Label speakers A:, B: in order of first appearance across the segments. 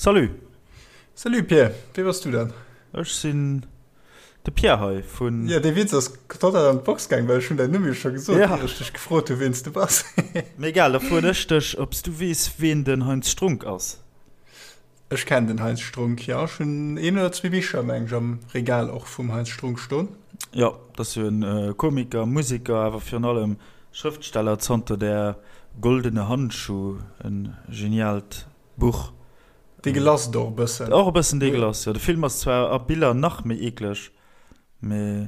A: Salut!
B: Salut Pierre, wee bass du dann?
A: Ech sinn de Pierre hei vun.
B: Jo, dee Witz ass total an d'Box gaang, well ech hunn däin Numm jo scho gesot, ier ech dech gefrot hu ween s du bass.
A: Mee egal, da froen ech dech, ob s du weess, ween den Heinz Strunk ass?
B: Ech kennen den Heinz Strunk, jo. Ech hunn een oder zwee Bicher, meng ech, am Regal och vum Heinz Strunk stoen.
A: Jo, dat ass jo e Komiker, Museker, awer virun allem Schrëftsteller, zanter Der goldene Handschuh, e geniaalt Buch.
B: Degelasst och e bëssen.
A: Och e bëssen degelasst, jo. De Film ass zwar a Biller nach méi eekleg, mee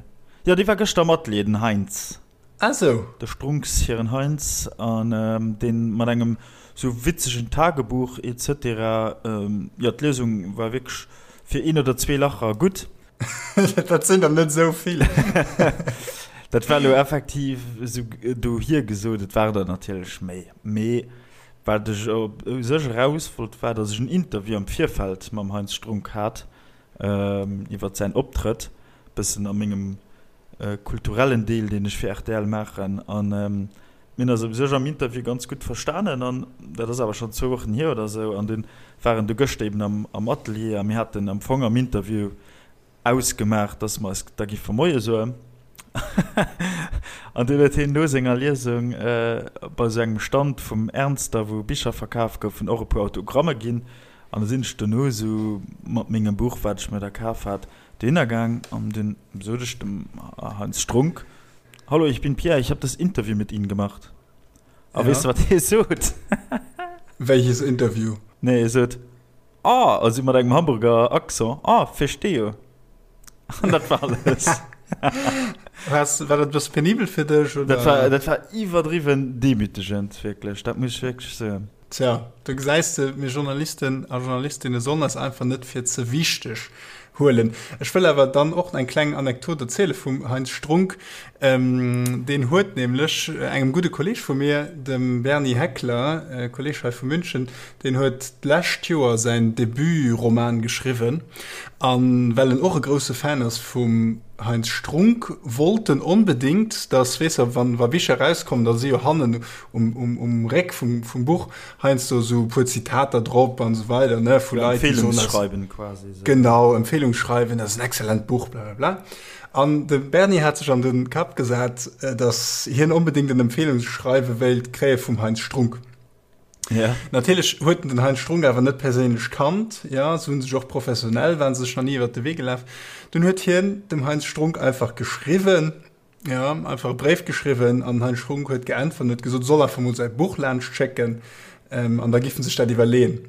A: jo, dee war gëschter am Atelier, den Heinz.
B: Ah sou.
A: De Strunks hiren Heinz, an deen mat engem sou witzegen Tagebuch et cetera. Jo, d'Liesung war wierklech fir een oder zwee Lacher gutt.
B: Dat sinn der net esou vill.
A: Dat war elo effektiv esou dohier gesot, et waren der natierlech méi, mee Wat ech u sech eraus wollt, war, datt ech en Interview am Virfeld mam Heinz Strunk hat iwwert säin Optrëtt, bëssen a mengem kulturellen Deel, deen ech fir rtl maachen. An mir hunn eis u sech am Interview ganz gutt verstanen an dat ass awer schonn zwou Wochen hier oder esou. An dunn war en du gëschter eben am Atelier a mir haten am Fong am Interview Ausgemaach, dass mer eis da giffe Moie soen. An dunn huet hien no senger Liesung bei esou engem Stand vum Ernster, wou Bicher verkaf goufen, och e puer Autogramme ginn. An da sinn ech dono esou mat mengem Buch, wat ech mir da kaf hat, dohinner gaang an dunn sot ech dem Heinz Strunk, Hallo, ich bin Pierre, ich hab das Interview mit Ihnen gemacht. A weess de, wat hie sot?
B: Welches Interview?
A: Nee, hie sot, Ah, also mat engem Hamburger Accent, Ah, verstehe. An dat war alles.
B: Was, war dat e bësse penibel fir dech,
A: oder? Dat war, dat war iwwerdriwwen demütegend, wierklech. Dat muss ech wierklech soen.
B: Tja, do gesäis de, mir Journalisten a Journalistinne sollen eis einfach net fir ze wichteg huelen. Ech wëll awer dann och eng kleng Anekdot erziele vum Heinz Strunk. Deen huet nämlech engem gudde Kolleeg vu mir, dem Bernie Heckler, Kolleeg hei vu München, deen huet d'lescht Joer säin Debut-Roman geschriwwen. A well en och e grousse Fan ass vum Heinz Strunk, wollt en onbedéngt, datt, weess der, wann wa Bicher erauskommen, da si jo hannen um Réck vum Buch heiansdo esou e puer Zitater drop an esou weider, ne, vu Leit, déi
A: soen, Empfehlungsschreiben quasi.
B: Genau, Empfehlungsschreiwen, dat ass en excellent Buch, blablabla. An de Bernie hat sech an de Kapp gesat, datt hien onbedéngt en Empfehlungsschreiwe wéilt kréie vum Heinz Strunk.
A: Ja.
B: Natierlech huet en den Heinz Strunk awer net perséinlech kannt, ja, se hu sech och professionell, waren se sech nach ni iwwert de Wee gelaf. Dunn huet hien dem Heinz Strunk einfach geschriwwen, ja, einfach e Bréif geschriwwen an den Heinz Strunk huet geäntwert an huet gesot, e soll einfach mol säi Buch laanscht schécken, an da giffen sech dat iwwerleeën.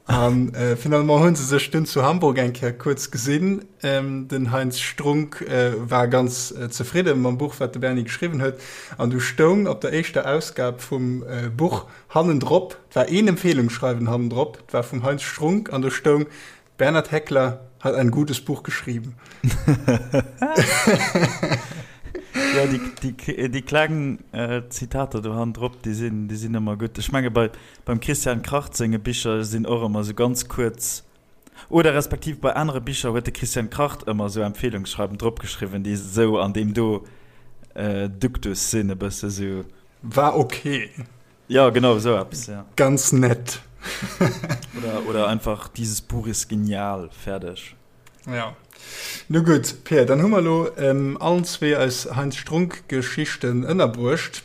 B: An finalement hu se sech dunn zu Hamburg eng Kéier kuerz gesinn. Den Heinz Strunk war ganz zefridde mam Buch, wat de Bernie geschriwwen huet. An du stoung op der éischter Ausgab vum Buch hannendrop, 't war een Empfehlungsschreiwen hannendrop, 't war vum Heinz Strunk an do stoung, Bernhard Heckler hat ein gutes Buch geschrieben.
A: Jo, déi kleng Zitater do hannendrop, déi sinn, déi sinn ëmmer gutt. Ech menge bei, beim Christian Kracht senge Bicher sinn och ëmmer esou ganz kuerz, oder respektiv bei anere Bicher huet de Christian Kracht ëmmer esou Empfehlungsschreiben drop geschriwwen, déi esou an deem do Duktus sinn, e bësse esou.
B: War ok.
A: Ja, genau esou eppes, ja.
B: Ganz nett.
A: Oder, oder einfach dieses Buch ist genial, fäerdeg.
B: Ja. Nu gutt, Pir, dann hu mer elo ähm, allen zwee eis Heinz Strunk-Geschichten ënnerbruecht.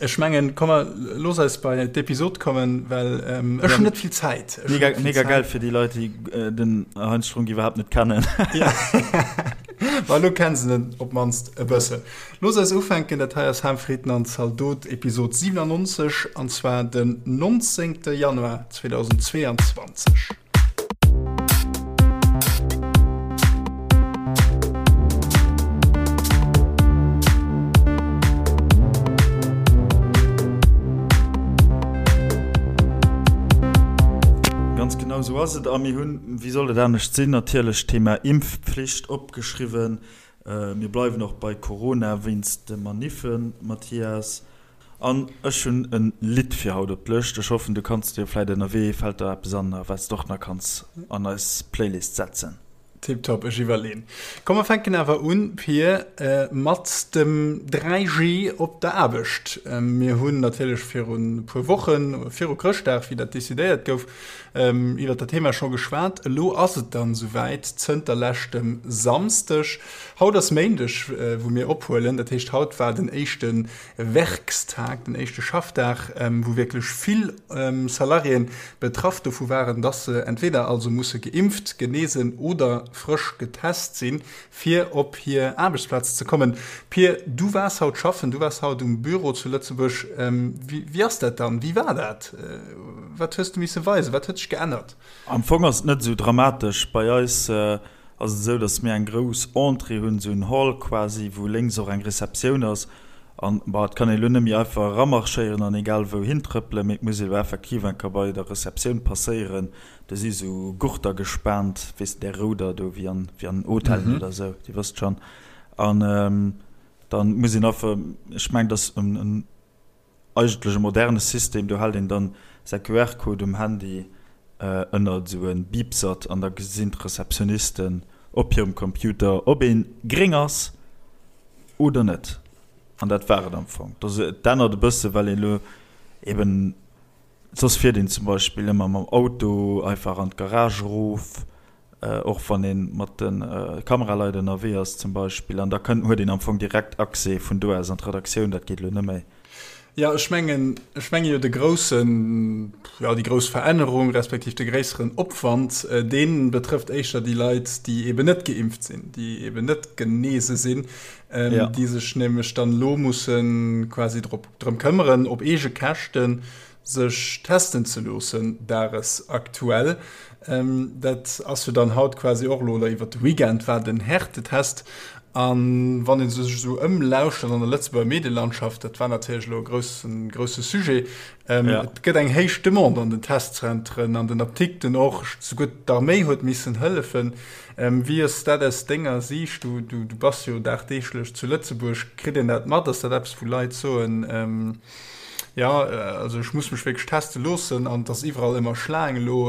B: Ech mengen, komm mer, looss eis bei d'Episod kommen, well ähm, ech hunn net vill Zäit.
A: Ech hunn Mega, net vill mega Zäit. geil fir déi Leit, déi äh, den Heinz Strunk iwwerhaapt net kennen.
B: Ja. Ma elo kennen se en op d'mannst e bëssen. Looss eis ufänken, dat hei ass Ham, Fritten an Zaldot, Episod 97, an zwar den 19. Januar 2022.
A: Ganz genau esou ass et. A mir hunn, wéi soll et anescht sinn, natierlech d'Thema Impfpflicht opgeschriwwen. Mir bleiwen och bei Corona wéinst de Maniffen, Mathias. An ech hunn e Lidd fir haut op d'Lëscht. Ech hoffen, du kanns dir vläit ënnerwee, fält der eppes an, wat s de och nach kanns an eis Playlist setzen.
B: Tiptop, ech iwwerleen. Komm mer fänken awer un, Pir, mat dem 3G op der Aarbecht. Mir hunn natierlech virun e puer Wochen, viru Chrëschtdag, wéi dat decidéiert gouf. Iwwert dat Thema scho geschwat. Elo ass et dann esouwäit, zënter leschtem Samsdeg. Haut ass Méindeg, wou mir ophuelen. Dat heescht, haut war den éischte Werkstag, den éischte Schaffdag, wou wierklech vill Salariéen betraff dovu waren, dass se entweder also musse geimpft, genesen oder frësch getest sinn, fir op hir Aarbechtsplaz ze kommen. Pir, du waars haut schaffen, du waars haut um Büro zu Lëtzebuerg. Wéi ass dat dann? Wéi war dat? Wat hues du misse weisen? Wat huet sech geännert?
A: Am Fong ass et net esou dramatesch. Bei eis ass et esou, datt mir eng grouss Entrée hunn, esou en Hall quasi, wou lénks och eng Receptioun ass. An, bon, et kann een elo net méi einfach eramarschéieren an egal wou hintrëppelen, mee et muss ee elo effektiv eng Kéier bei der Receptioun passéieren. Do si sou Gurter gespaant, weess de, där rouder do, wéi an, wéi an Hotellen oder esou, Dir wësst schonn. An dann muss een einfach, ech mengen, dat ass en, en eigentlech e moderne System, do hält een dann säi QR-Code um Handy ënnert esou e Biipsert an da gesinn d'Receptionnisten op hirem Computer, ob ee gréng ass oder net. An dat war et am Fong. Et ännert e bësse well een elo eben Soss fiert een zum Beispill ëmmer mam Auto einfach an d'Garage erof, och wann ee mat de Kameraleit ënnerwee ass zum Beispill. An da kënnt, huet een am Fong direkt Accès vun do aus an d'Redaktioun. Dat geet elo net méi.
B: Jo, ech mengen, ech menge jo de groussen, jo déi grouss Verännerung respektiv de gréisseren Opwand, dee betrëfft éischter déi Leit, déi eben net geimpft sinn, déi eben net genese sinn, déi sech nämlech dann elo musse quasi drop drëm këmmeren, op eege Käschten sech testen ze loossen, dagesaktuell. Dat ass jo dann haut quasi och elo, oder iwwert de Weekend war den Härtetest. A wann ee sech esou ëmlauschtert an der Lëtzebuerger Medielandschaft, dat war natierlech elo e groussen, grousse Sujet, et gëtt eng héich Demande an den Testzentren, an den Apdikten och, souguer d'Arméi huet missen hëllefen. Wéi ass dat aus denger Siicht? Du, du, du bass jo dagdeeglech zu Lëtzebuerg. Kritt een dat mat? Ass dat eppes, wou Leit soen, jo, also ech muss mech wierklech teste loossen an et ass iwwerall ëmmer Schlaang elo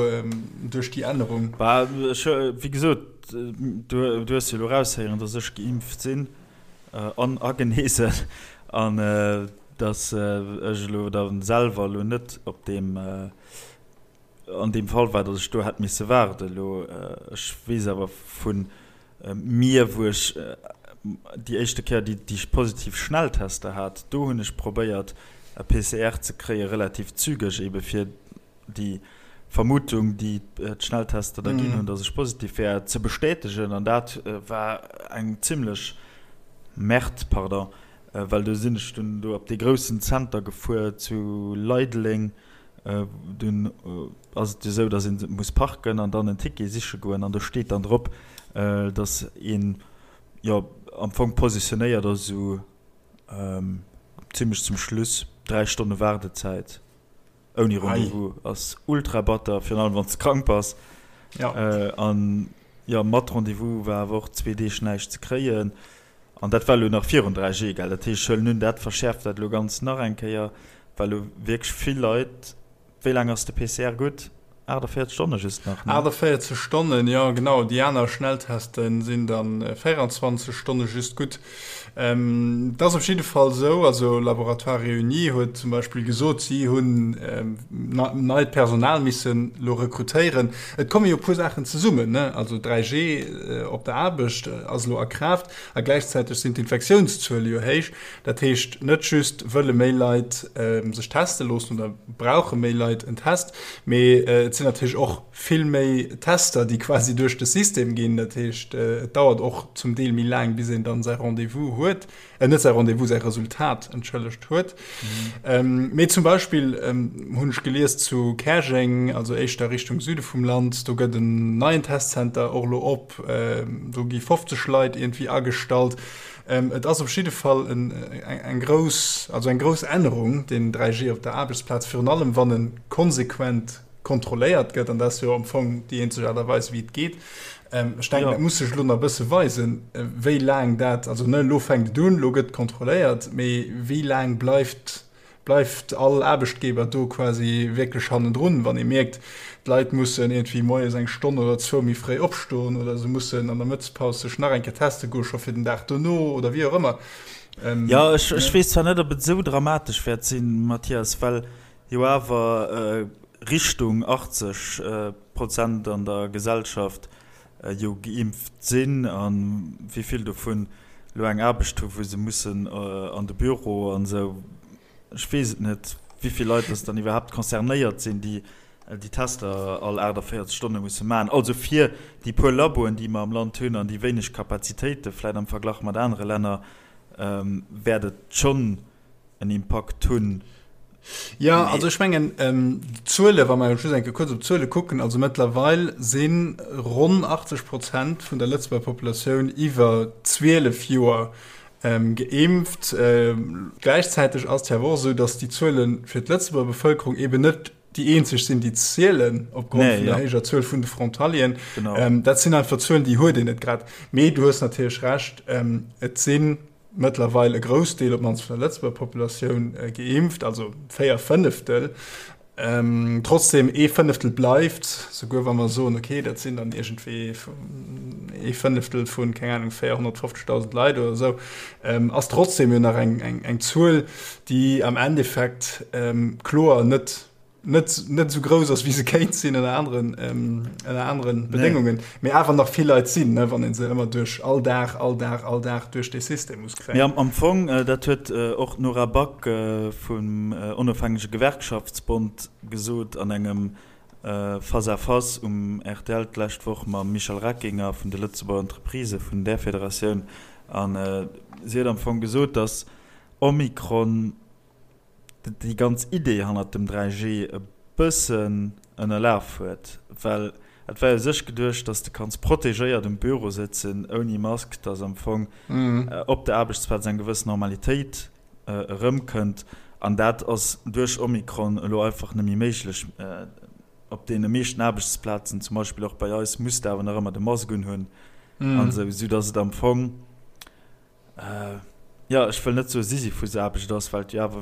B: duerch déi Ännerung?
A: Bah, ech, wéi gesot, du, du hues jo elo eraushéieren, datt ech geimpft sinn an a genesen an datt ech elo da selwer elo net op deem, An deem Fall war, datt ech do hätt misse waarden. Elo, ech weess awer vu mir, wou ech déi éischte Kéier déi déi positiv Schnelltester hat, do hunn ech probéiert e PCR ze kréie relativ zügeg, ebe fir déi Vermutung, déi d'Schnelltester da ginn hunn, datt ech positiv wär, ze bestätegen. An dat war eng zimlech Merde, pardon, well do sinn ech dunn do op dee groussen Zenter gefuer zu Leideleng, Dunn ass et jo esou, datt ee muss parken an dann en Ticket siche goen an do steet dann drop, datt een jo am Fong positionéiert ass esou zimmlech zum Schluss, 3 Stonne Waardezäit ouni Rendez-vous ass ultra batter, virun allem wann s de krank bass. An jo mat Rendez-vous war awer och zwee Deeg näischt ze kréien. An dat war elo nach virun 3G, gell? Dat heescht, ech huelen un, dat verschäerft dat elo ganz nach eng Kéier, well elo wierklech vill Leit, wéi laang ass de PCR gutt? 48 Stonne just nach,
B: ne? 48 Stonnen, jo genau. Déi aner Schnellteste sinn da 24 Stonne just gutt. Et ass op jidde Fall esou, also Laboratoires Réunis huet zum Beispill gesot, si hunn neit Personal missen elo rekrutéieren. Et komme jo e puer Saachen zesummen, ne? Also 3G op der Aarbecht ass elo a Kraaft a gläichzäiteg sinn d'Infektiounszuele jo héich. Dat heescht, net just wëlle méi Leit sech teste loossen oder brauche méi Leit en Test, mee et sinn natierlech och vill méi Tester, déi quasi duerch de System ginn. Dat heescht, et dauert och zum Deel méi laang, bis een dann säi Rendez-vous huet, äh, net säi Rendez-vous, säi Resultat, entschëllegt, huet. Mhm. Mee zum Beispill hunn ech gelies zu Käerjeng, also éischter Richtung Süde vum Land, do gëtt en neien Testcenter och elo op, do gi 50 Leit iergendwéi agestallt. Et ass op jidde Fall eng grouss, also eng grouss Ännerung, deen 3G op der Aarbechtsplaz, virun allem wann e konsequent kontrolléiert gëtt, an dat ass jo am Fong déi eenzeg Aart a Weis, wéi et geet. Ech denken, dat muss sech elo nach e bësse weisen, wéi laang dat, also ne, elo fänkt et un, elo gëtt kontrolléiert, mee wéi laang bleift, bleift all Aarbechtgeber do quasi wierklech hannendrun, wann ee mierkt, d'Leit mussen iergendwéi moies eng Stonn oder zwou méi fréi opstoen oder se mussen an der Mëttespaus sech nach eng Kéier teste goe scho fir den Dag dono oder wéi och ëmmer.
A: Jo, ech weess zwar net, ob et esou dramatesch wäert sinn, Mathias, well jo awer. Richtung 80 Prozent an der Gesellschaft jo geimpft sinn a wéi vill dovun elo eng Aarbecht hu wou se mussen an de Büro an esou. Ech weess et net, wéi vill Leit dass dann iwwerhaapt concernéiert sinn, déi déi Tester all 48 Stonne musse maachen. Also fir déi puer Laboen, déi mer am Land hunn an déi wéineg Kapazitéite vläicht am Verglach mat anere Länner, wäert et schonn en Impakt hunn.
B: Jo, also ech mengen, d'Zuele, wa mer just eng Kéier kuerz op d'Zuele kucken, also mëttlerweil si ronn 80 Prozent vun der Lëtzebuerger Populatioun iwwer 12 Joer geimpft. Gläichzäiteg ass et jo awer och esou, datt déi Zuele fir d'Lëtzebuerger Bevëlkerung eeben net déi eenzeg sinn, déi zielen, opgrond vun der héijer Zuel vun de Frontalieren. Dat sinn einfach Zuelen, déi huet een net grad. Mee du hues natierlech Recht, et si mëttlerweil e Groussdeel, op d'mannst vun der Lëtzebuerger Populatioun, geimpft, also 4 Fënneftel. Trotzdem, ee Fënneftel bleift, souguer wa mer soen, okay, dat sinn dann iergendwéi ee Fënneftel vun, keng Anung, 450.000 Leit oder esou, ass trotzdem jo nach eng Zuel, déi am Endeffekt kloer net net net esou grouss ass, wéi se kéint sinn ënner aneren ënner aneren Bedéngungen, mee awer nach vill Leit sinn, ne, wann ee se ëmmer duerch all Dag, all Dag, all Dag duerch dee System muss kréien.
A: Mee am Fong, dat huet och d'Nora Back vum Onofhängege Gewerkschaftsbond gesot an engem Face-à-face um rtl d'lescht Woch mam Michel Reckinger vun de Lëtzebuerger Entreprisë vun där Federatioun. A si huet am Fong gesot, datt Omikron déi ganz Idee hannert dem 3G e bëssen ënnerlaf huet, well et war jo u sech geduecht, dass de kanns protegéiert um Büro sëtzen ouni Mask, dass am Fong op der Aarbechtsplaz eng gewëss Normalitéit erëmkënnt an dat ass duerch Omikron elo einfach net méi méiglech. Op deene meeschten Aarbechtsplazen, zum Beispill och bei eis, muss de awer nach ëmmer de Mask unhunn an esou, soudass et am Fong, Jo, ech wëll net soe Sisyphusaarbecht ass, well et jo awer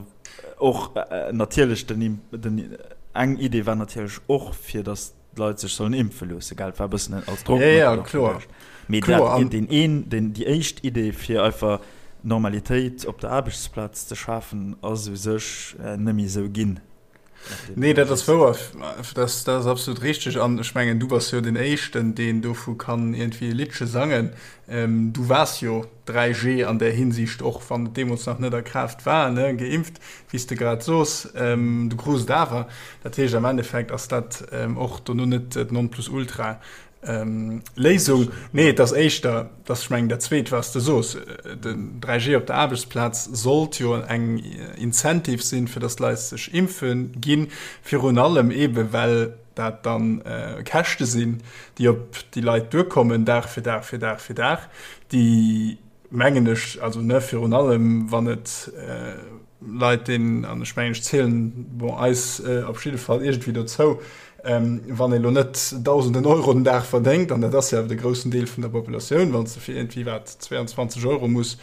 A: och natierlech den, den, eng Idee war natierlech och, fir datt d'Leit sech sollen impfe loosse, gell? Et war e bëssen als Drockmëttel och geduecht. Mee dat, deen een, deen, déi éischt Idee, fir einfach Normalitéit op der Aarbechtsplaz ze schafen, ass u sech net méi esou ginn.
B: Nee, dat ass wouer. Dat, dat ass absolut richteg. An ech mengen, du bass jo den Éischten, deen dovu kann iergendwéi e Liddche sangen. Ähm, du waars jo 3G an där Hinsicht, och wann et deemools nach net a Kraaft war, ne, geimpft, wéi s de grad sos. Ähm, du krus et awer. Dat heescht, am Endeffekt ass dat och dono net d'Nonplusultra. Léisung. Nee, et ass éischter, dass, ech mengen, dat Zweet, wat s de sos, den 3G op der Aarbechtsplaz sollt jo eng Incentive sinn, fir dass d'Leit sech impfe ginn, virun allem eebe well dat dann Käschte sinn, déi op déi Leit duerkommen, Dag fir Dag fir Dag fir Dag, déi, mengen ech, also ne, virun allem wann et Leit deen, an ech mengen ech zielen, bon, eis op jidde Fall iergendwéi dozou, wann ee lo net Dausenden Euro den Dag verdéngt, an dat ass jo awer de groussen Deel vun der Populatioun, wann s de fir iergendwéi wat 22 Euro muss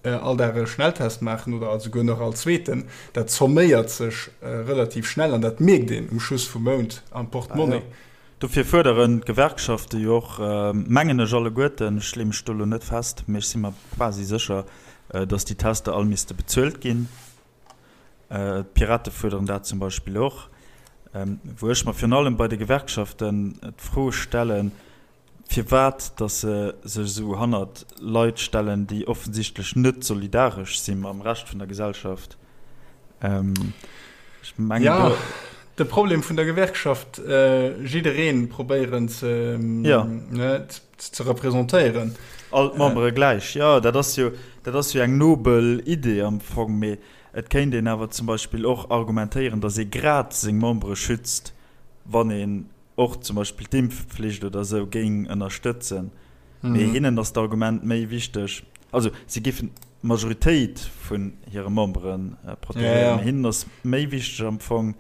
B: all Dag e Schnelltest maachen oder esouguer nach all zweeten, dat zomméiert sech relativ schnell an dat mierkt een um Schluss vum Mount am Portemonnaie.
A: Dofir fuerderen d'Gewerkschafte jo och, mengen ech alleguerten, ech leeë mech do elo net fest, mee ech si mer quasi sécher, datt déi Tester all misste bezuelt ginn. D'Pirate fuerderen dat zum Beispill och. Wou ech mer virun allem bei de Gewerkschaften d'Fro stellen, firwat datt se sech esou hannert Leit stellen, déi offensichtlech net solidaresch si mam Rescht vun der Gesellschaft.
B: Ech mengen, ja, do de Problem vun der Gewerkschaft, jiddereen probéieren ze, ja. ne, ze representéieren.
A: All d'Membere gläich. Jo, dat ass jo, dat ass jo eng nobel Idee am Fong, mee et kéint een awer zum Beispill och argumentéieren, datt ee grad seng Membere schützt, wann een och zum Beispill d'Impfpflicht oder esou géing ënnerstëtzen. Mee hinnen ass d'Argument méi wichteg, also si géifen d'Majoritéit vun hire Membere protegéieren, mee hinnen ass méi wichteg am Fong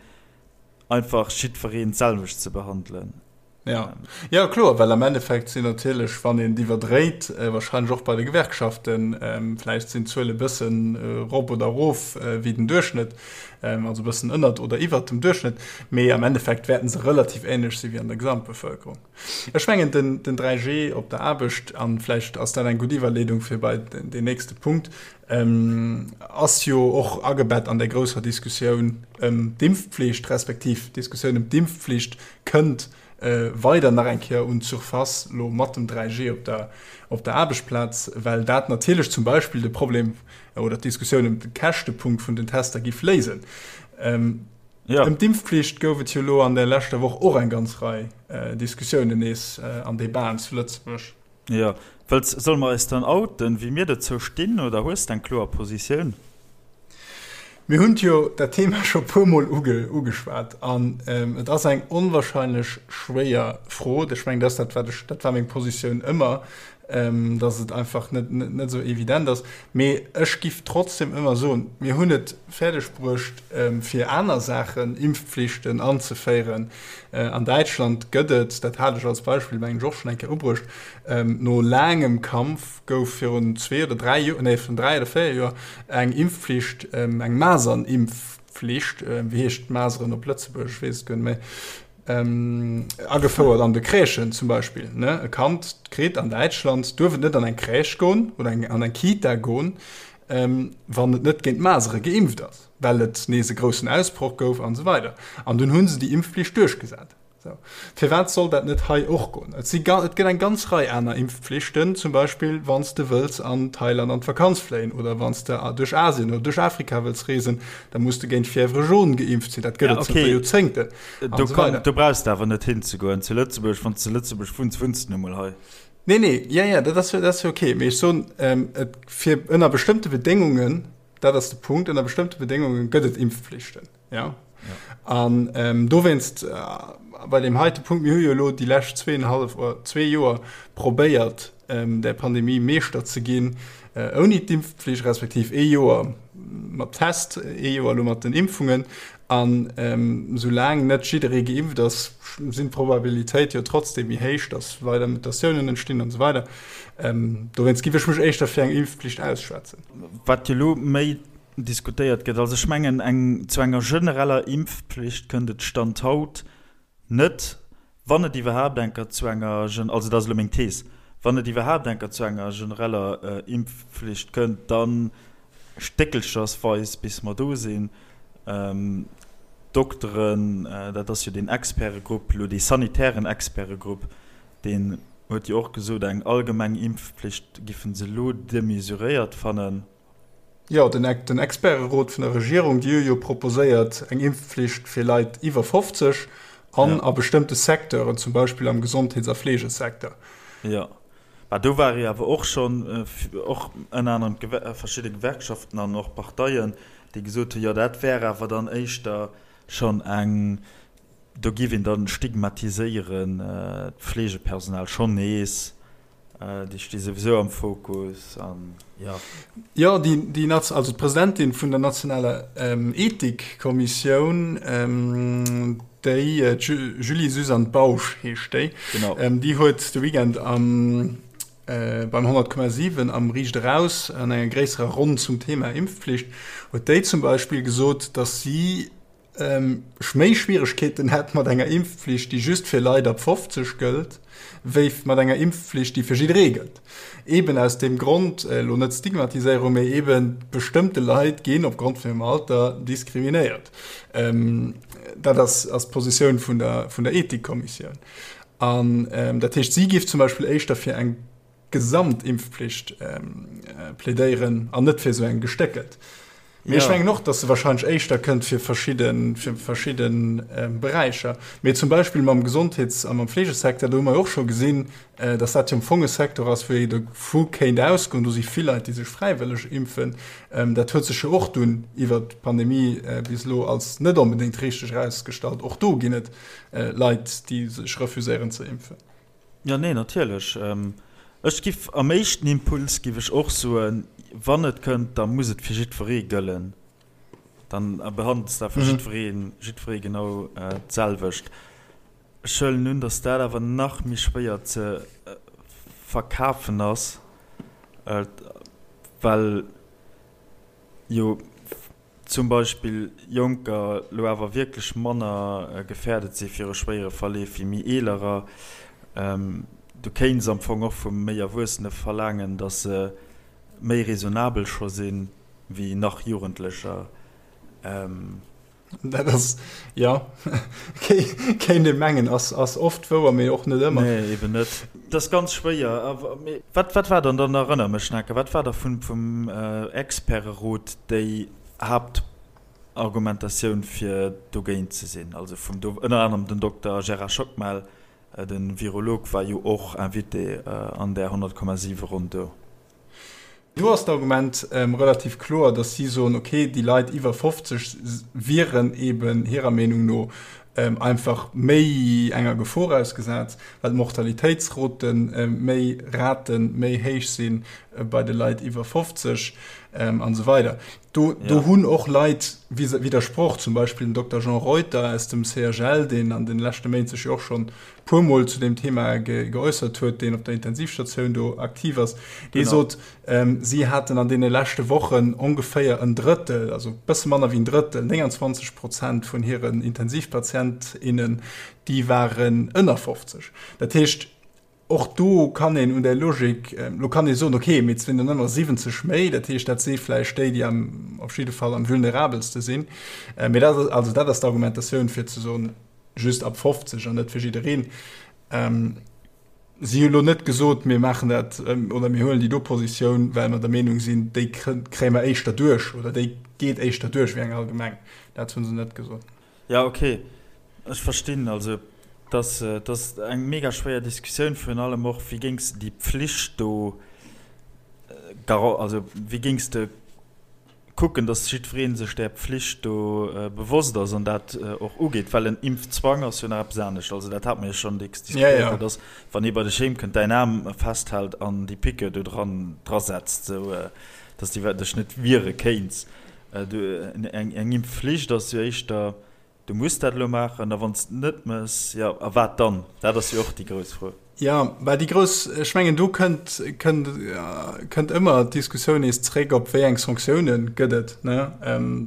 A: einfach jiddwereen d'selwecht ze behandelen.
B: Ja. Ja, kloer, well am Endeffekt sinn natierlech, wann een et iwwerdréit, wahrscheinlech och bei de Gewerkschaften, vläicht sinn d'Zuele bëssen erop oder erof wéi den Duerchschnëtt, also e bëssen ënnert oder iwwert dem Duerchschnëtt, mee am Endeffekt wäerten se relativ änlech si wéi an der Gesamtbevëlkerung. Ech mengen, den, den 3G op der Aarbecht, an vläicht ass dat eng gutt Iwwerleedung fir bei den nächste Punkt, ass jo och agebett an där grousser Diskussioun ëm d'Impfpflicht, respektiv d'Diskussioun ëm d'Impfpflicht kënnt weider nach eng Kéier un d'Surface elo mat dem 3G op der, op der Aarbechtsplaz, well dat natierlech zum Beispill de Problem oder d'Diskussioun ëm de Käschtepunkt vun den Tester giff léisen. Ëm d'Impfpflicht gouf et jo elo an der leschter Woch och eng ganz Rei Diskussiounen nees an Debaten zu Lëtzebuerg.
A: Jo, wëlls, solle mer eis dann outen, wéi mir dozou stinn, oder hues de eng kloer Positioun?
B: Mir hunn jo dat Thema scho puer Mol ugeschwat an et ass eng onwahrscheinlech schwéier Fro. Ech mengen, dat ass dat, wat ech, dat war meng Positioun ëmmer, dass et einfach net, net esou evident ass. Mee ech giff trotzdem ëmmer soen, mir hunn et fäerdeg bruecht, fir aner Saachen, Impfpflichten anzeféieren. An Däitschland gëtt et, dat hat ech als Beispill, mengen ech, och schonn eng Kéier ubruecht, no laangem Kampf gouf virun zwee oder dräi Joer, nee, virun dräi oder véier Joer eng Impfpflicht, eng Masernimpfpflicht, wéi heescht d'Maseren op Lëtzebuergesch, ech weess et guer net méi, agefouert an de Crèchen zum Beispill. Ne? E Kand kritt an Däitschland, duerf et net an eng Crèche goen oder eng, an eng Kita goen, wann et net géint d'Masere geimpft ass, well et nees e groussen Ausbroch gouf an esou weider. An dunn hu se déi Impfpflicht duerchgesat. Sou. Firwat soll dat net hei och goen? Et si et gëtt eng ganz Rei aner Impfpflichten, zum Beispill wann s de wëlls an Thailand an d'Vakanz fléien oder wann s de duerch Asien oder duerch Afrika wëlls reesen, da muss de géint Fièvre jaune geimpft sinn. Dat gëtt
A: et
B: zënter Joerzéngten
A: an esou weider. Do brauchs de awer net hinzegoen. Zu Lëtzebuerg, wann s de zu Lëtzebuerg wunns, wunns de nu mol hei.
B: Nee, nee, jo, jo, dat ass jo, dat ass jo okay. Mee ech soen, et fir ënner bestëmmte Bedéngungen, dat ass de Punkt, ënner bestëmmte Bedéngunge gëtt et Impfpflichten. Ja. An ähm, dowéinst äh, bei deem heite Punkt, mir hu jo elo déi lescht zweeënhallef oder zwee Joer probéiert, ähm, der Pandemie Meeschter ze ginn, äh, ouni d'Impfpflicht, respektiv ee Joer mat Test, ee Joer elo mat den Impfungen. An ähm, soulaang net jidderee geimpft ass, sinn d'Probabilitéit jo trotzdem méi héich, dass weider Mutatiounen entstinn an esou weider. Ähm, dowéinst giff ech mech éischter fir eng Impfpflicht ausschwätzen.
A: Wat jo elo méi diskutéiert gëtt. Also ech mengen, eng, zu enger genereller Impfpflicht kënnt et Stand haut net, wann et iwwerhaapt eng Kéier zu enger, also dat ass elo meng Thees, wann et iwwerhaapt eng Kéier zu enger genereller Impfpflicht kënnt, da stéckelchersweis bis mer do sinn. D'Dokteren, dat ass jo deen Expertegrupp elo, dee sanitären Expertegrupp, deen huet jo och gesot, eng allgemeng Impfpflicht giffen se elo demesuréiert fannen.
B: Jo, den Experterot vun der Regierung, déi hu jo proposéiert eng Impfpflicht fir Leit iwwer 50 an a bestëmmte Secteuren, zum Beispill am Gesondheets a Fleegesecteur.
A: Jo, mä do ware jo awer och schonn, och ënner anerem verschidde Gewerkschaften an och Parteien, déi gesot hunn, jo dat wär awer dann éischter schonn eng, do géif een dann stigmatiséieren d'Fleegepersonal schonn nees. Déi sti souwisou am Fokus an jo.
B: Jo, déi, déi Naz-, also d'Presidentin vun der nationaler Ethikkommissioun, déi, d'Julie-Suzanne Bausch heescht déi,
A: Genau.
B: déi huet de Weekend am, beim 100,7 am Riicht Eraus an enger gréisserer Ronn zum Thema Impfpflicht, huet déi zum Beispill gesot, datt si, ech méi Schwieregkeeten hätt mat enger Impfpflicht, déi just fir Leit ab 50 gëllt, wéi mat enger Impfpflicht, déi fir jidderee gëllt. Eben aus deem Grond, elo net Stigmatiséierung, mee eben bestëmmte Leit ginn opgrond vun hirem Alter diskriminéiert. Dat ass d'Positioun vun der, vun der Ethikkommissioun. An dat heescht, si géif zum Beispill éischter fir eng Gesamtimpfpflicht plädéieren an net fir esou eng gestéckelt. Mee ech mengen och, datt se wahrscheinlech éischter kënnt fir verschidde, fir verschidde Beräicher. Mee zum Beispill mam Gesondheets a mam Fleegesecteur, do hu mer jo och scho gesinn, datt dat jo am Fong e Secteur ass, wou ee dovu kéint ausgoen, do si vill Leit, déi sech fräiwëlleg impfen. Dat huet sech jo och dunn iwwert d'Pandemie bis elo als net onbedéngt richteg erausgestallt. Och do ginn et Leit, déi sech refuséieren ze impfen.
A: Jo, nee, natierlech. Ech giff am éischten Impuls giff ech och soen, wann et kënnt, da muss et fir jiddweree gëllen. Dann behandels de awer jiddweree, jiddweree genau d'selwecht. Ech huelen un, datt dat awer nach méi schwéier ze verkafen ass, well jo zum Beispill Jonker lo awer wierklech manner gefährdet si viru schwéiere Verleef wéi méi Eelerer. Du kéints am Fong och vu méi Erwuessene verlaangen, datt se méi raisonnabel scho si wéi nach Jugendlecher.
B: Dat ass, jo, kéint ee mengen, ass oft wouer, mee och net ëmmer.
A: Nee, eben net. Dat ass ganz schwéier. Mee wat, wat war dann, dann erënner mech, Nake, wat war da vum, vum Experterot déi Haaptargumentatioun, fir dogéint ze sinn? Also vum, do ënner anerem den Dokter Gérard Schockmel, de Virolog, war jo och Invité an där 100,7 Ronn do.
B: Do ass d'Argument relativ kloer, datt si soen, okay, déi Leit iwwer 50 wieren eben hirer Meenung no einfach méi enger Gefor ausgesat, well d'Mortalitéitsrote méi Rate méi héich si bei de Leit iwwer 50 an esou weider. Do hunn och Leit widdersproch, zum Beispill den Dokter Jean Reuter aus dem CHL, deen an de leschte Méint sech jo och schonn puer Mol zu deem Thema geäussert huet, deen op der Intensivstatioun do aktiv ass, dee sot, si haten an deene leschte Wochen ongeféier en Drëttel, also e bësse manner wéi en Drëttel, 29 Prozent vun hiren Intensivpatient, innen, déi waren ënner 50. Dat heescht, och do kann een un där Logik, lo kann ee soen, okay, mee et sinn der nëmmer 70 méi, dat heescht, dat si vläicht déi, déi am, op jidde Fall am vulnerabelste sinn. Mee dat ass, also dat ass d'Argumentatioun, fir ze soen, just ab 50 an net fir jiddereen. Si hu lo net gesot, mir maachen dat oder mir huelen déi do Positioun, well mer der Meenung sinn, déi kréie mer éischter duerch oder déi geet éischter duerch wéi eng allgemeng. Dat hu se net gesot.
A: Jo, okay, ech verstinn. Also dat ass eng mega schwéier Diskussioun, virun allem och, wéi géings de déi Pflicht do, also wéi géings de kucken, dass jiddweree sech där Pflicht do bewosst ass an dat och ugeet, well en Impfzwang ass jo nach eppes anescht. Also dat hate mer jo schonn dacks diskutéiert, dat ass, wann ee bei dech heem kënnt, däin Aarm festhält an déi Piqûre do dran drasetzt, esou dass de dech net wiere kéints. Eng Impfflicht ass jo éischter, Du muss dat elo maachen, a wann s de et net méchs, jo, a wat dann? Dat ass jo och déi grouss Fro.
B: Jo, mä déi grouss, ech mengen, do kënnt, kënnt, kënnt ëmmer d'Diskussioun nees zréck op, wéi eng Sanktioune gëtt et, ne?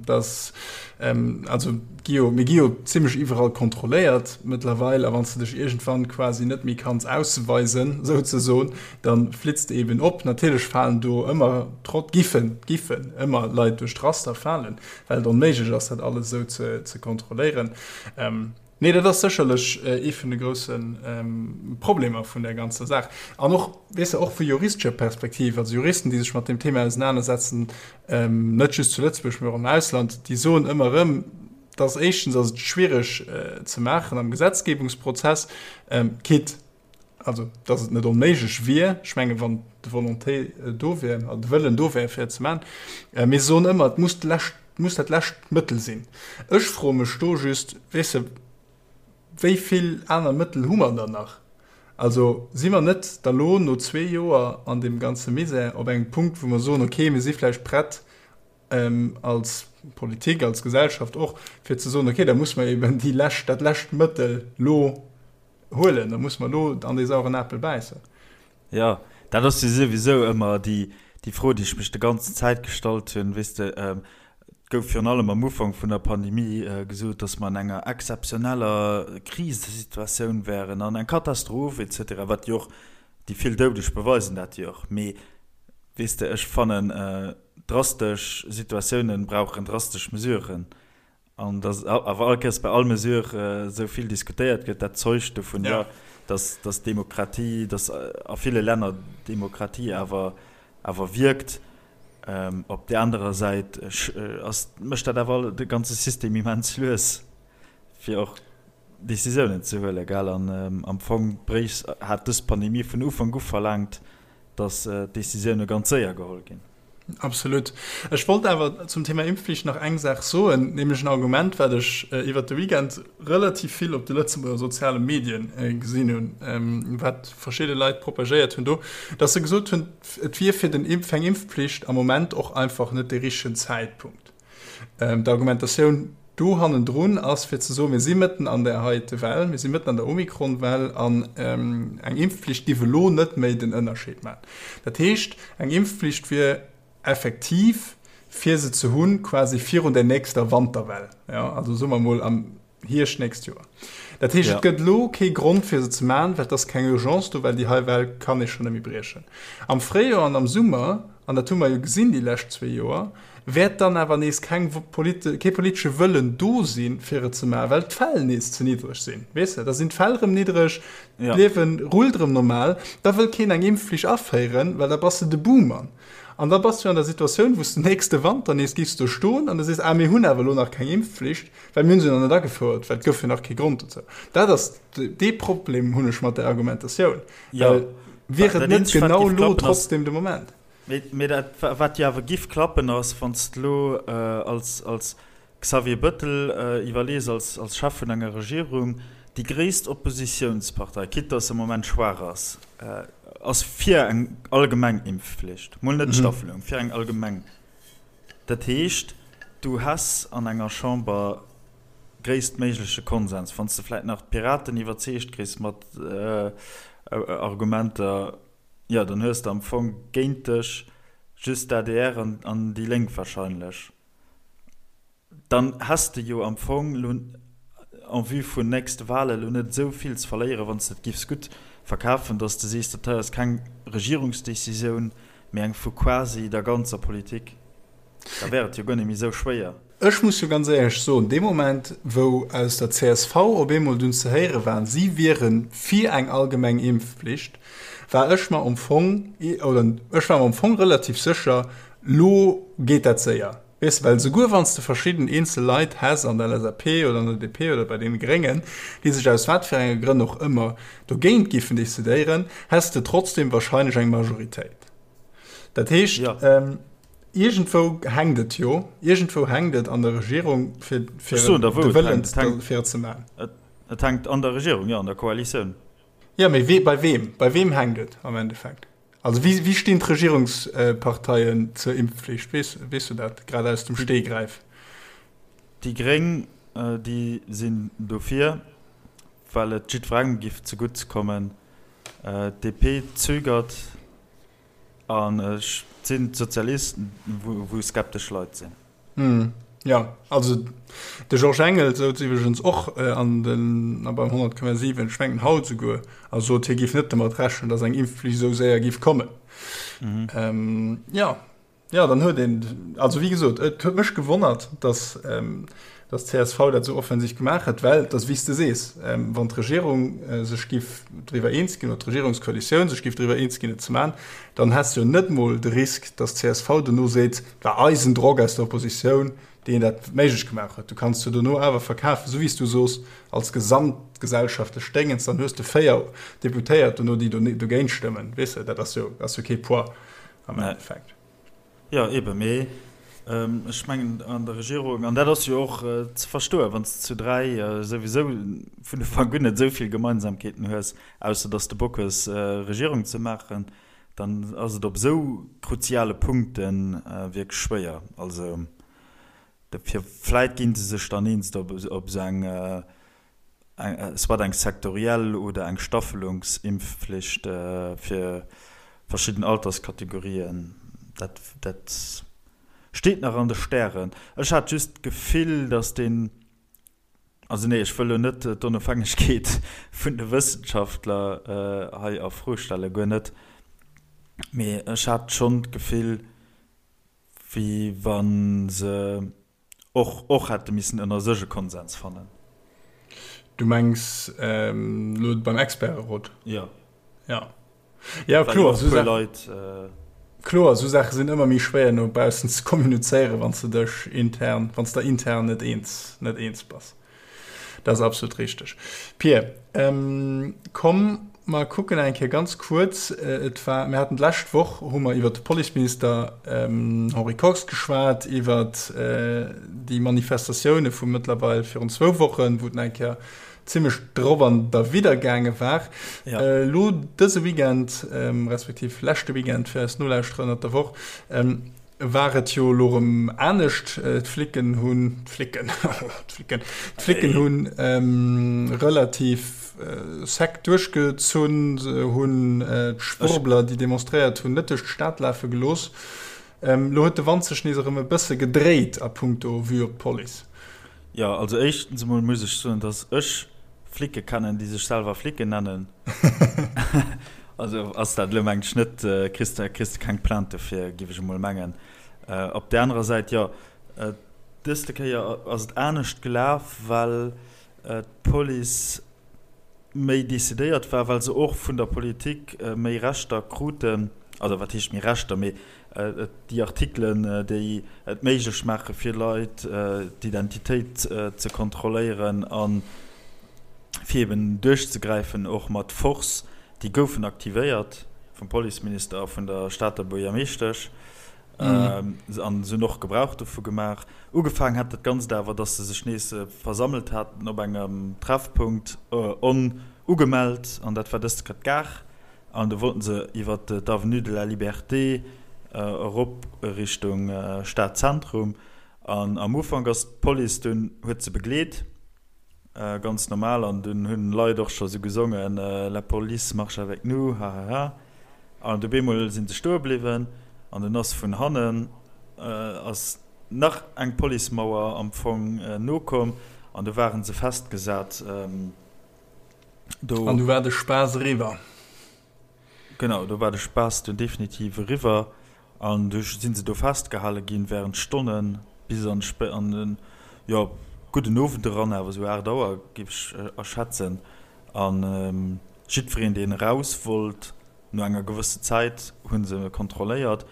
B: Dass, also gi jo, mir gi jo zimlech iwwerall kontrolléiert mëttlerweil, a wann s de dech iergendwann quasi net méi kanns ausweisen, souzesoen, da flitts de eben op. Natierlech falen do ëmmer trot, giffen, giffen ëmmer Leit duerch d'Raster falen. well et onméiglech ass, dat alles esou ze kontrolléieren. Nee, dat ass sécherlech ee vun de grousse Problemer vun där ganzer Saach. An och, weess de, och vu juristescher Perspektiv, also Juristen, déi sech mat deem Thema ausenanersetzen, net just zu Lëtzebuerg, mee och am Ausland, déi soen ëmmer erëm, dass éischtens ass et schwiereg ze maachen am Gesetzgebungsprozess, quitte also dass et net onméiglech wier, ech menge wann d'Volonté do wär, also de Wëllen do wär fir et ze maachen, mee se soen ëmmer, et muss d'lescht, muss dat lescht Mëttel sinn. Ech froe mech do just, weess de, wéi vill aner Mëttel hu mer dann nach? Also si mer net da lo no zwee Joer an deem ganze Misär op engem Punkt, wou mer soen, okay, mir si vläicht prett als Politik, als Gesellschaft och, fir ze soen, okay, da muss mer eben déi lescht, dat lescht Mëttel lo Huelen, da muss mer elo an dee sauren Apel bäissen.
A: Jo, dat ass jo souwisou ëmmer déi, déi Fro, déi ech mech de ganzen Zäit gestallt hunn. Weess de, et gouf virun allem am Ufank vun der Pandemie gesot, datt mer an enger exzeptioneller Krisesituatioun wären an eng Katastroph et cetera, wat jo och, déi vill Doudeg beweisen dat jo och. Mee weess de, ech fannen, drastesch Situatiounen brauchen drastesch Mesuren. An dass awer all Kéiers bei all Mesure esou vill diskutéiert gëtt, dat zeugt dovun, jo, dass, dass d'Demokratie, dass a ville Länner d'Demokratie awer, awer wierkt. Op där anerer Säit ass, mécht dat awer de ganze System immens lues, fir och Décisiounen ze huelen, gell. An am Fong bréicht, hat dës Pandemie vun Ufank u verlaangt, dass d'Décisioune ganz séier geholl ginn.
B: Absolut. Ech wollt awer zum Thema Impfflicht nach eng Saach soen, nämlech en Argument, wat ech iwwert de Weekend relativ vill op de Lëtzebuerger soziale Medien gesinn hunn, wat verschidde Leit propagéiert hunn do, dass se gesot hunn, et wier fir den fir eng Impfpflicht am Moment och einfach net de richtegen Zäitpunkt. D'Argumentatioun. do hannendrun ass, fir ze soen, mir si mëtten an där heite Well, mir si mëtten an der Omikron-Well an eng Impfpflicht giff elo net méi den Ënnerscheed maachen. Dat heescht, eng Impfpflicht wier effektiv, fir se ze hunn, quasi virun der nächster Wanterwell, jo, also soe mer emol am Hierscht nächst Joer. Dat heescht, et gëtt elo kee Grond, fir se ze maachen, well et ass keng Urgence do, well déi hei Well kann ee schonn net méi briechen. Am Fréijoer an am Summer, an dat hu mer jo gesinn déi lescht zwee Joer, wäert dann awer nees keng kee politesche Wëllen do sinn, fir et ze maachen, well d'Fäll nees ze niddreg sinn. Weess de, da sinn d'Fäll erëm niddreg, d'Liewe rullt erëm normal, da wëll keen eng Impfflicht aféieren, well da bass de de Buhmann. An da bass du an der Situatioun, wou s de nächste Wanter nees giffs do stoen an du sees, ah mir hunn awer elo nach keng Impfflicht, well mir hunn se nach net agefouert, well et gouf jo nach kee Grond dozou. Dat ass, dee Problem hunn ech mat där Argumentatioun, well wier et net genau elo trotzdem de Moment?
A: Mee dat, wat jo awer giff klappen, ass, wann s de elo als Xavier Bëttel iwwerlees, als Chef vun enger Regierung, déi gréisst Oppositiounspartei, quitte datt se am Moment schwaach ass, ass fir eng allgemeng Impfflicht, mol net d'Staffelung, fir eng allgemeng. Dat heescht, du häss an enger Chamber gréisstméigleche Konsens, wann s de vläicht nach d'Piraten iwwerzeegt kriss mat Argumenter. Jo, dann hues de am Fong géint dech just d'ADR an déi Lénk wahrscheinlech. Dann häss de jo am Fong lo en vue vun nächste Wahlen lo net esou vill ze verléieren, wann s de et giffs gutt verkafen, dass de sees, dat hei ass keng Regierungsdecisioun, mee eng vu quasi der ganzer Politik. Da wär et jo guer net méi esou schwéier.
B: Ech muss jo ganz éierlech soen, dee Moment, wou aus der csv op eemol dunn ze héiere war, si wiere fir eng allgemeng Impfpflicht, war ech mer am Fong, oder ech war mer am Fong relativ sécher, lo geet dat séier. Weess de, well souguer wann s de verschidden eenzel Leit häss an der LSAP oder an der DP oder bei deene Gréngen, déi sech aus wat fir enge Grënn och ëmmer dogéint giffen decidéieren, häss de trotzdem wahrscheinlech eng Majoritéit. Dat heescht, Iergendwou hänkt et jo, iergendwou hänkt et an der Regierung, fir, fir
A: Ech soen der, wou
B: de
A: et
B: Wëllen
A: hänkt. Et hänkt,
B: fir et ze maachen.
A: et, et hänkt an der Regierung, jo, an der Koalitioun.
B: Jo, mee wee, bei weem? Bei weem hänkt et am Endeffekt? Also wéi, wéi stinn d'Regierungsparteien zur Impfflicht? Weess, weess du dat grad aus dem
A: Déi,
B: Stegreif?
A: déi Gréng, déi sinn dofir, well et jiddwerengem giff zegutt kommen. D'DP zögert. An et sinn d'Sozialisten, wou skeptesch Leit
B: sinn. Jo, also de Georges Engel souz iwwregens och an den, beim 100,7, ech mengen haut esouguer, a sot, hie géif net domat rechnen, datt eng Impfflicht esou séier géif kommen. Jo, jo, dann huet een, also wéi gesot, et huet mech gewonnert, datt Dass csv dat esou offensiv gemaach huet, well et ass wéi s de sees, wann d'Regierung sech giff driwwer eens ginn, oder d'Regierungskoalitioun sech giff driwwer eens ginn et ze maachen, dann häss de jo net mol de Risk, dass csv dono seet, et war eisen Drock aus der Oppositioun, deen dat méiglech gemaach huet. Du kanns jo dono awer verkafen, esou wéi s du soos, als gesamtgesellschaftlech Déngens, dann hues de 4 Deputéiert dono, déi dogéint stëmmen. Weess de, dat ass jo ass jo kee Poids am Endeffekt.
A: Jo, eben, mee ech mengen an der Regierung, an dat ass jo och ze verstoen, wann s de zu 3 souwisou vun Ufank un net esou vill Gemeinsamkeeten hues, ausser datt s de Bock hues Regierung ze maachen, dann ass et op esou kruziale Punkte wierklech schwéier. Also dofir, vläit gi se sech dann eens op esou eng soit eng sektoriell oder eng Staffelungsimpfflicht fir verschidden Alterskategorien, dat dat steet nach an de Stären. Ech hat just d'Gefill, datt deen, also nee, ech wëll elo net d'Onofhängegkeet vun de Wëssenschaftler hei a Fro stellen, guer net, mee ech hat schonn d'Gefill, wéi wa se Och och hätte missen ënner sech e Konsens fannen.
B: Du mengs elo beim Experterot?
A: Jo.
B: Ja. Ja, kloer, esou Saachen, Leit, kloer, esou Saache sinn ëmmer méi schwéier no baussen ze kommunizéieren, wann s de dech intern, wann s der intern net eens, net eens bass. Dat ass absolut richteg. Pir, komm mer kucken eng Kéier ganz kuerz, et war, mir haten d'lescht Woch hu mer iwwert de Policeminister Henri Kox geschwat, iwwert déi Manifestatioune vu mëttlerweil virun zwou Wochen, wou et nach eng Kéier zimmlech drop an derwidder gaange war. Elo dëse Weekend, respektiv leschte Weekend fir eis Nolauschterer ënnert der Woch. War et jo elo erëm anescht. D'Flicken hunn, d'Flicken, d'Flicken, d'Flicken hunn relativ sec duerchgezunn, se hunn d'Schwurbler, déi demonstréiert hunn, net duerch d'Stad lafe gelooss. Elo huet de Wand sech nees erëm e bësse gedréit a punkto Vue op d'Police.
A: Jo, also éischtens emol muss ech soen, dass ech Flicke kennen, déi sech selwer Flicken nennen. Also ass dat elo mengen ech net, kriss de kriss de keng Plainte dofir, géif ech emol mengen. Op där anerer Säit, jo, dëste Kéier ass et anescht gelaf, well d'Police méi decidéiert war, well se och vun der Politik méi Rechter kruten, also wat heescht méi Rechter, mee déi Artikelen, déi et méiglech maache fir Leit d'Identitéit ze kontrolléieren a fir eben duerchzegräifen, och mat Force, déi goufen aktivéiert vum Policeminister a vun der Stater Buergermeeschtesch an se hunn och Gebrauch dovu gemaach. Ugefaangen hat dat Ganzt awer, datt se sech nees versammelt haten op engem Treffpunkt, onugemellt, an dat war dëst Kéier d'Gare. An do wollten se iwwer d'Avenue de la Liberté erop Richtung Stadzentrum. An am Ufank ass d'Police dunn, huet se begleet, ganz normal. An dunn hunn Leit och scho sou gesongen, La police marche avec nous, hahaha. An du bemol si se stoe bliwwen an dunn ass vun hannen ass nach eng Policemauer am Fong nokomm an du ware se festgesat.
B: Do. An du war de Spaass eriwwer.
A: Genau, do war de Spaass dunn definitiv eriwwer an du si se do festgehale ginn während Stonnen bis an an den, jo, gudden Owend eran, awer esou 8 Auer géif ech erschätzen. An jiddwereen, deen eraus wollt, no enger gewësse Zäit hu se kontrolléiert.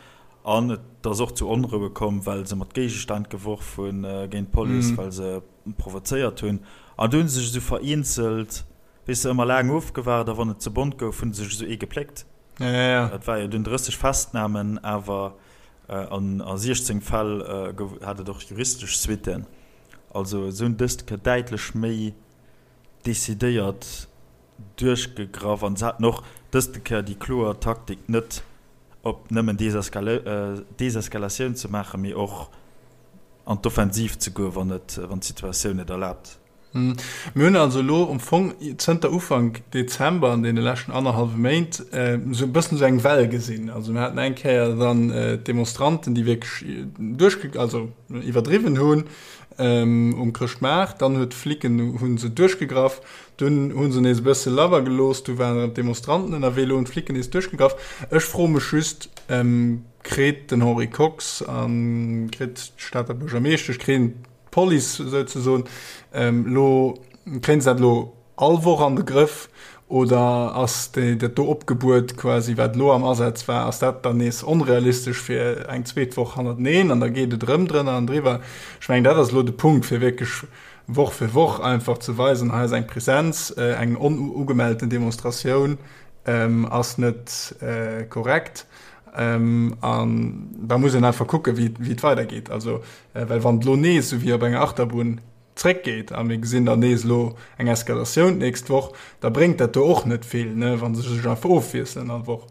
A: An et ass och zu Onroue komm, well se mat Géigestänn geworf hunn géint d'Police, well se provozéiert hunn. An du hu se sech esou vereenzelt, weess de, ëmmer laang ofgewaart a wann et ze bont gouf, hu se sech esou ee gepléckt. Et war jo dunn 30 Festnamen, awer an a 16 Fäll gouf, hat et och juristesch Suitten. Also se hunn dëst Kéier däitlech méi decidéiert duerchgegraff an se haten och dëst Kéier déi kloer Taktik net op nëmmen Deseskalatioun ze maachen, mee och an d'Offensiv ze goen, wann et, wann d'Situatioun et erlaabt.
B: Mir hunn also elo am Fong zënter Ufank Dezember, an deene leschten annerhallwe Méint, esou e bëssen esou eng Well gesinn. Also mir haten eng Kéier dann d'Demonstranten, déi wierklech duerchge-, also iwwerdriwwen hunn um Chrëschtmaart. Dann huet d'Flicken, hu se duerchgegraff. Dunn hu se nees e bësse labber gelooss. Du waren erëm d'Demonstranten ënnerwee. Elo hunn d'Flicken nees duerchgegraff. Ech froe mech just, Kritt den Henri Kox a kritt d'Stater Buergermeeschtesch, kréien d'Police souzesoen elo, kréien se dat elo all Woch an de Grëff oder ass dat do Opgebuet quasi, wat elo am Asaz war, ass dat dann nees onrealistesch fir eng zweet Woch hannerteneen an da geet et erëm drënner an driwwer? Ech mengen, dat ass elo de Punkt, fir wierklech Woch fir Woch einfach ze weisen, hei ass eng Presenz, eng onugemellten Demonstratioun ass net korrekt. An da muss een einfach kucken, wéi et weidergeet. Also, well wann et elo nees esou wéi op enger Achterbunn zréckgeet a mir gesinn dann nees elo eng Eskalatioun d'nächst Woch, da bréngt dat do och net vill, wa se sech einfach ofwiesselen all Woch.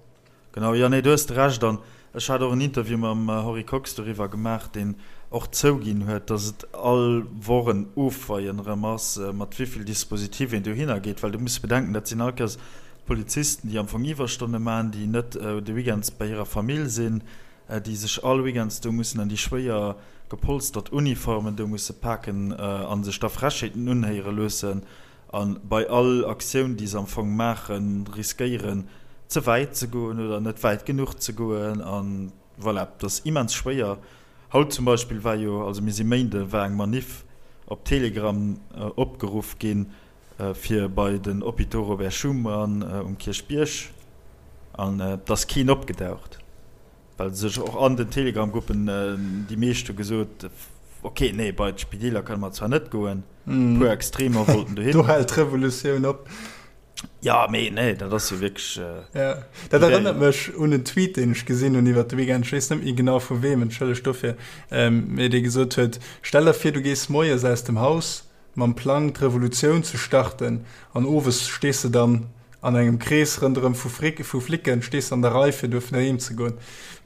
A: Genau, jo, nee, do hues de Recht. An ech hat och en Interview mam Henri Kox doriwwer gemaach, deen och zouginn huet, datt et all Woch en Ofweien erëm ass, mat wéi vill Dispositif een dohinner geet. Well du muss bedenken, dat sinn all Kéiers Polizisten, déi am Fong Iwwerstonne maachen, déi net de Weekends bei hirer Famill sinn, déi sech all Weekends do mussen an déi schwéier gepolstert Uniformen do musse paken a sech da Frechheeten unhéiere loossen a bei all Aktioun, déi se am Fong maachen, riskéieren, ze wäit ze goen oder net wäit genuch ze goen. A voilà, dat ass immens schwéier. Haut zum Beispill war jo, also mir si Méinde, war eng Maniff op Telegram opgeruff ginn, fir bei den Hôpitaux Robert Schuman um Kierchbierg an et ass keen opgedaucht, well sech och an den Telegram-Gruppen déi meescht hu gesot, ok, nee, bei d'Spideeler kënne mer zwar net goen, e puer Extremer wollten dohin.
B: Do hält d'Revolutioun op.
A: Jo, mee nee, dat ass jo wierklech.
B: Jo, dat erënnert mech un en Tweet, deen ech gesinn hunn iwwert de Weekend, ech weess net méi genau vu weem, entschëllegt dofir, mee dee gesot huet, Stell der vir, du gees moies aus dem Haus, mam Plang d'Revolutioun ze starten an owes stees de dann An engem Krees rënderëm vu Frick, vu Flicken, stees an der Rei fir duerfen heem ze goen,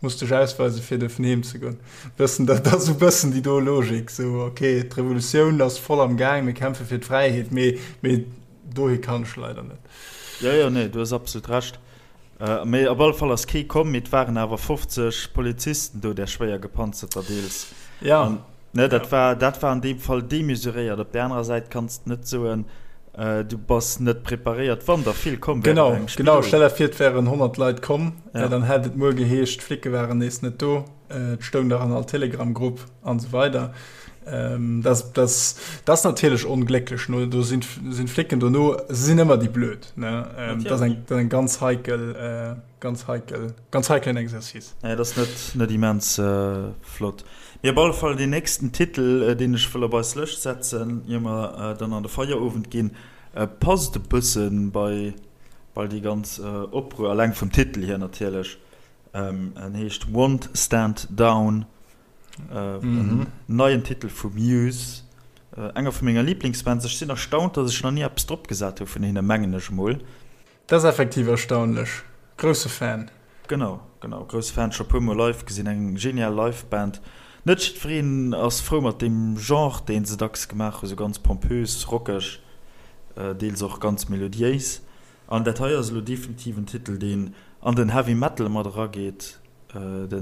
B: muss dech ausweisen fir duerfen heem ze goen. Bëssen, dat ass esou bëssen déi do Logik, esou ok, d'Revolutioun ass voll am Gaang, mir kämpfe fir d'Fräiheet, mee, mee dohi kann ech leider net.
A: Jo, jo, nee, du hues absolut Recht. Mee op alle Fall ass kee komm, mee et waren awer 50 Polizisten do, där schwéier gepanzerter deels.
B: Ja.
A: An, ne, dat war, dat war an deem Fall demesuréiert. Op där anerer Säit kanns de net soen, du bass net preparéiert, wann der vill komm wären
B: Genau, engem genau. Stell der vir, et wären 100 Leit komm, ja. dann hätt et muer geheescht, d'Flicke waren nees net do, et stoung nach an all Telegram-Grupp an esou weider. Ähm, das, das, das natierlech onglécklech no do sinn sinn Flicken dono se sinn ëmmer déi blöd ne ähm, das eng dat eng ganz heikel äh, ganz heikel ganz heikelen Exercice.
A: Ja, das net net immens äh, flott. Mee op alle Fall deen nächsten Titel, äh, deen ech wëll op eis Lëscht setzen, ier mer äh, dann an de Feierowend ginn, äh, passt e bëssen bei bei déi ganz äh, Opruer, alleng vum Titel hier natierlech. Ähm, en heescht Won't Stand Down. En neien Titel vu Muse, enger vu menger Liblingsbands. Ech sinn erstaunt, datt ech nach ni eppes drop gesat hu vun hinne, mengen ech emol.
B: Dat ass effektiv erstaunlech. Grousse Fan.
A: Genau, genau, grousse Fan. Scho puer mol live gesinn, eng genial Live-Band. Net jiddwereen ass frou mat deem Genre, deen se dacks gemaach hu, sou ganz pompös, rockeg, deels och ganz melodiéis. An dat hei ass elo definitiv en Titel, deen an den Heavy Metal mat erageet. De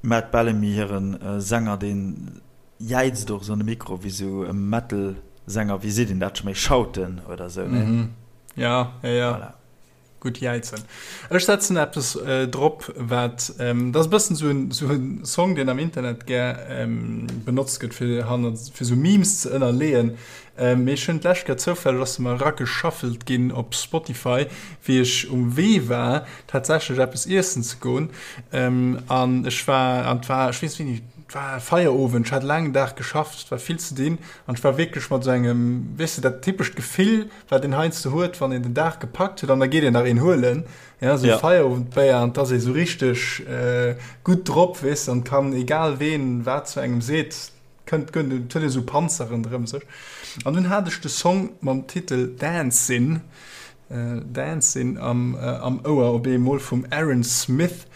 A: Matt Bellamy, hire Sänger, dee jäizt och esou an de Mikro wéi esou e Metal-Sänger, wéi seet een dat scho méi, shouten oder esou,
B: ne? Ja, ja, ja. Voilà. Gutt jäizen. Ech setzen eppes drop, wat, dat ass e bëssen esou en, esou en Song, deen am Internet gär benotzt gëtt, fir hannert, fir esou Memes ze ënnerleeën. Mee ech hunn d'lescht Kéier zoufälleg, ass se mer erageshuffelt ginn op Spotify, wéi ech um Wee war, tatsächlech eppes iessen ze goen. An ech war, an et war, ech weess wéini, et war Feierowend, ech hat e laangen Dag geschafft, et war vill ze dinn an ech war wierklech mat esou engem, weess de, dat typescht Gefill, wat een heiansdo huet, wann een den Dag gepackt huet an da geet een nach een huelen, ja, esou e Feierowendbéier an et ass ee sou richteg gutt drop, weess de, an kann, egal ween wat zu engem seet, Kënnt gënnt et huet esou Panzer ronderëm sech. An dunn hat ech de Song mam Titel Dancin', Dancin' am am Ouer op eemol vum Aaron Smith,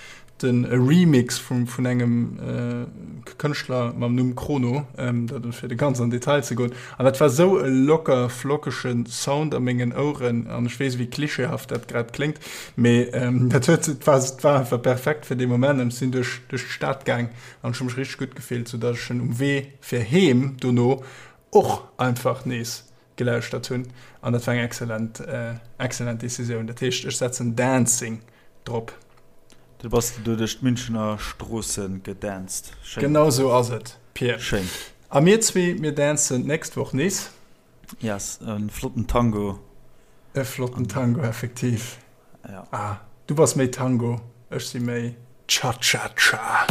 B: den e Remix vum vun engem Kënschtler mam Numm Chrono, dat fir de ganz an Detail ze goen. An dat war sou e locker flockege Sound a mengen Oueren an ech weess wéi klischeehaft dat grad kléngt, mee dat huet et war et war einfach perfekt fir dee Moment an ech sinn duerch duerch d'Stad gaang An ech hu mech richteg gutt gefillt, sou dass ech en um Wee fir heem dono och einfach nees gelauschtert hunn. An dat war eng excellent, excellent Decisioun. Dat heescht, ech setzen Dancing drop.
A: Du bass du duerch d'Münchener Stroosse gedanced.
B: Schéin. Genau sou ass et, Pir.
A: Schéin.
B: A mir zwee, mir dancen d'nächst Woch nees.
A: Yes, e flotten Tango.
B: E flotten Tango, effektiv.
A: Ja.
B: Ah, du bass méi Tango, ech si méi Cha-Cha-Cha.